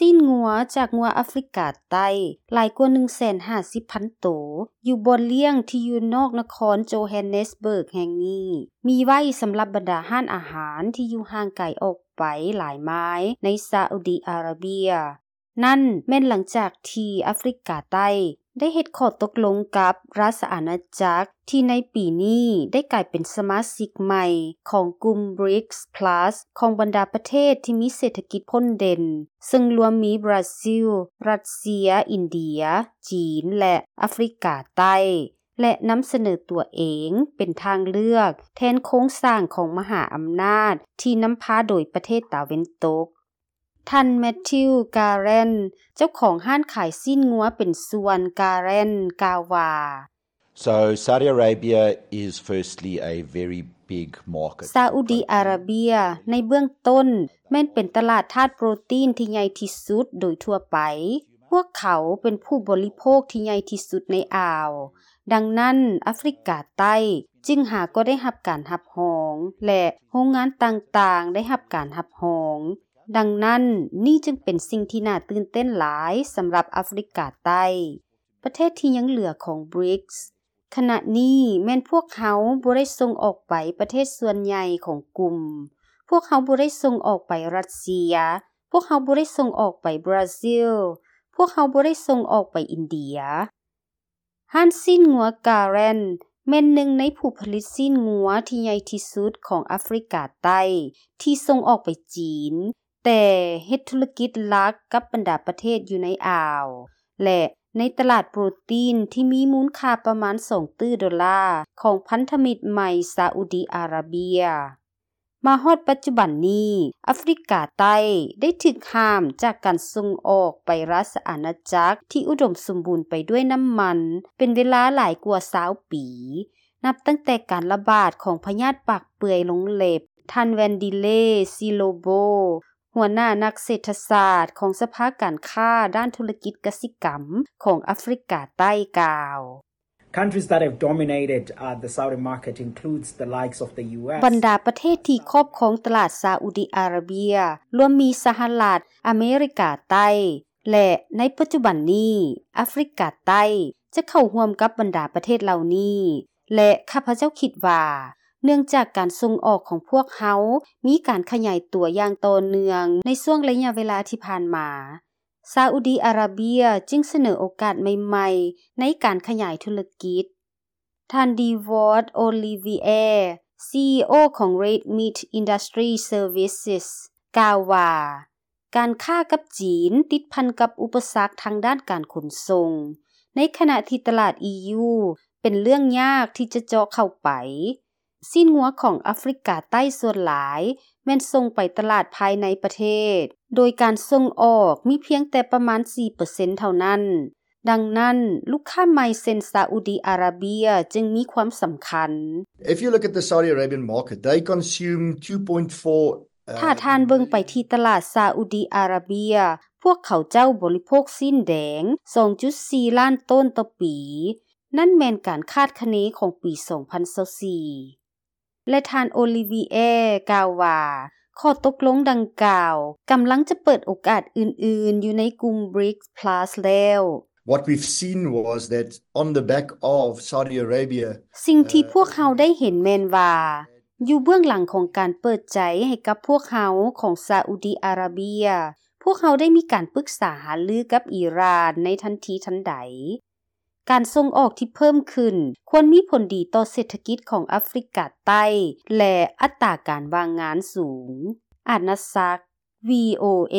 ຊີ້ນງົວຈາກງົວອາຟຣິກາໃຕ້ຫຼາຍກວ່າໜຶ່ງແສນຫ້າສິບພັນໂຕ ຢູ່ບ່ອນລ້ຽງທີ່ຢູ່ນອກນະຄອນໂຈແຮນເນສເບີກແຫ່ງນີ້ ມີໄວ້ສຳລັບບັນດາຮ້ານອາຫານທີ່ຢູ່ຫ່າງໄກອອກໄປຫຼາຍໄມລ໌ໃນຊາອຸດີອາຣາເບຍ. ນັ້ນແມ່ນຫຼັງຈາກທີ່ອາຟຣິກາໃຕ້ໄດ້ເຮັດຂໍ້ຕົກລົງກັບລາຊະອານາຈັກ ທີ່ໃນປີນີ້ໄດ້ກາຍເປັນສະມາຊິກໃໝ່ຂອງກຸ່ມ ບຣິກສ໌ ພລັສ ຂອງບັນດາປະເທດທີ່ມີເສດຖະກິດພົ້ນເດັ່ນ ເຊິ່ງລວມມີບຣາຊິລ, ຣັດເຊຍ, ອິນເດຍ, ຈີນ ແລະ ອາຟຣິກາໃຕ້ ແລະ ນຳສະເໜີຕົວເອງເປັນທາງເລືອກແທນໂຄງສ້າງຂອງມະຫາອຳນາດທີ່ນຳພາໂດຍປະເທດຕາເວັນຕົກ. ທ່ານ ແມັດທິວ ກາແຣນ ເຈົ້າຂອງຮ້ານຂາຍຊີ້ນງົວເປັນສ່ວນ ກາແຣນ ກ່າວວ່າ So Saudi Arabia is firstly a very big market. ຊາອຸດີອາຣາເບຍໃນເບື້ອງຕົ້ນແມ່ນເປັນຕະຫຼາດທາດໂປຣຕີນທີ່ໃຫຍ່ທີ່ສຸດໂດຍທົ່ວໄປ. ພວກເຂົາເປັນຜູ້ບໍລິໂພກທີ່ໃຫຍ່ທີ່ສຸດໃນອ່າວ. ດັ່ງນັ້ນ ອາຟຣິກາໃຕ້ຈຶ່ງຫາກໍໄດ້ຮັບການຮັບຮອງ ແລະ ໂຮງງານຕ່າງໆໄດ້ຮັບການຮັບຮອງ. ດັ່ງນັ້ນ ນີ້ຈຶ່ງເປັນສິ່ງທີ່ໜ້າຕື່ນເຕັ້ນຫຼາຍສຳລັບອາຟຣິກາໃຕ້. ປະເທດທີ່ຍັງເຫຼືອຂອງ ບຣິກສ໌ ຂະນະນີ້ແມ່ນພວກເຮົາບໍ່ໄດ້ສົ່ງອອກໄປປະເທດສ່ວນໃຫຍ່ຂອງກຸ່ມ. ພວກເຮົາບໍ່ໄດ້ສົ່ງອອກໄປຣັດເຊຍ. ພວກເຮົາບໍ່ໄດ້ສົ່ງອອກໄປບຣາຊິລ. ພວກເຮົາບໍ່ໄດ້ສົ່ງອອກໄປອິນເດຍ. ຮ້ານຊີ້ນງົວກາແຣນ ແມ່ນໜຶ່ງໃນຜູ້ຜະລິດຊີ້ນງົວທີ່ໃຫຍ່ທີ່ສຸດຂອງອາຟຣິກາໃຕ້ ທີ່ສົ່ງອອກໄປຈີນ, ແຕ່ເຮັດທຸລະກິດຫຼັກກັບບັນດາປະເທດຢູ່ໃນອ່າວ ແລະ ໃນຕະຫຼາດໂປຣຕີນທີ່ມີມູນຄ່າປະມານສອງຕື້ໂດລາຂອງພັນທະມິດໃໝ່ຊາອຸດີອາຣາເບຍ. ມາຮອດປັດຈຸບັນນີ້, ອາຟຣິກາໃຕ້ໄດ້ຖືກຫ້າມຈາກການສົ່ງອອກໄປລາຊະອານາຈັກທີ່ອຸດົມສົມບູນໄປດ້ວຍນ້ຳມັນເປັນເວລາຫຼາຍກວ່າຊາວປີ, ນັບຕັ້ງແຕ່ການລະບາດຂອງພະຍາດປາກເປື່ອຍລົງເລັບ. ທ່ານ ແວນດີເລ ຊີໂລໂບ ຫົວໜ້ານັກເສດຖະສາດຂອງສະພາການຄ້າດ້ານທຸລະກິດກະສິກຳຂອງອາຟຣິກາໃຕ້ກ່າວ. Countries that have dominated, uh, the Saudi market includes the likes of the ຢູ ເອສ. ບັນດາປະເທດທີ່ຄອບຄອງຕະຫຼາດຊາອຸດີອາຣາເບຍ ລວມມີສະຫະລັດອາເມລິກາໃຕ້ ແລະ ໃນປັດຈຸບັນນີ້ ອາຟຣິກາໃຕ້ຈະເຂົ້າຮ່ວມກັບບັນດາປະເທດເຫຼົ່ານີ້ ແລະ ຂ້າພະເຈົ້າຄິດວ່າ ເນື່ອງຈາກການສົ່ງອອກຂອງພວກເຮົາມີການຂະຫຍາຍຕົວຢ່າງຕໍ່ເນື່ອງໃນຊ່ວງໄລຍະເວລາທີ່ຜ່ານມາ, ຊາອຸດີອາຣາເບຍຈຶ່ງສະເໜີໂອກາດໃໝ່ໆໃນການຂະຫຍາຍທຸລະກິດ. ທ່ານ ດີວອດ ໂອລິເວຍ ຊີອີໂອ ຂອງ ເຣດມິດ ອິນດັສທຣີ ເຊີວິສ ກ່າວວ່າ ການຄ້າກັບຈີນຕິດພັນກັບອຸປະສັກທາງດ້ານການຂົນສົ່ງ, ໃນຂະນະທີ່ຕະຫຼາດ ອີ ຢູ ເປັນເລື່ອງຍາກທີ່ຈະເຈາະເຂົ້າໄປ. ຊີ້ນງົວຂອງອາຟຣິກາໃຕ້ສ່ວນຫຼາຍແມ່ນສົ່ງໄປຕະຫຼາດພາຍໃນປະເທດ, ໂດຍການສົ່ງອອກມີພຽງແຕ່ປະມານສີ່ເປີເຊັນເທົ່ານັ້ນ. ດັ່ງນັ້ນ, ລູກຄ້າໃໝ່ເຊັ່ນຊາອຸດີອາຣາເບຍຈຶ່ງມີຄວາມສຳຄັນ. If you look at the Saudi Arabian market, they consume two point four, uh, ຖ້າທ່ານເບິ່ງໄປທີ່ຕະຫຼາດຊາອຸດີອາຣາເບຍ, ພວກເຂົາເຈົ້າບໍລິໂພກຊີ້ນແດງສອງຈຸດສີ່ລ້ານໂຕນຕໍ່ປີ. ນັ້ນແມ່ນການຄາດຄະເນຂອງປີສອງພັນຊາວສີ່ ແລະ ທ່ານ ໂອລິເວຍ ກ່າວວ່າ ຂໍ້ຕົກລົງດັ່ງກ່າວກຳລັງຈະເປີດໂອກາດອື່ນໆຢູ່ໃນກຸ່ມ ບຣິກສ໌ ພລັສ ແລ້ວ. What we've seen was that on the back of Saudi Arabia, ສິ່ງທີ່ພວກເຮົາໄດ້ເຫັນແມ່ນວ່າ ຢູ່ເບື້ອງຫຼັງຂອງການເປີດໃຈໃຫ້ກັບພວກເຮົາຂອງຊາອຸດີອາຣາເບຍ, ພວກເຮົາໄດ້ມີການປຶກສາຫາລືກັບອີຣານໃນທັນທີທັນໃດ. ການສົ່ງອອກທີ່ເພີ່ມຂຶ້ນຄວນມີຜົນດີຕໍ່ເສດຖະກິດຂອງອາຟຣິກາໃຕ້ ແລະ ອັດຕາການວ່າງງານສູງ. ອານາສັກ ວີໂອເອ.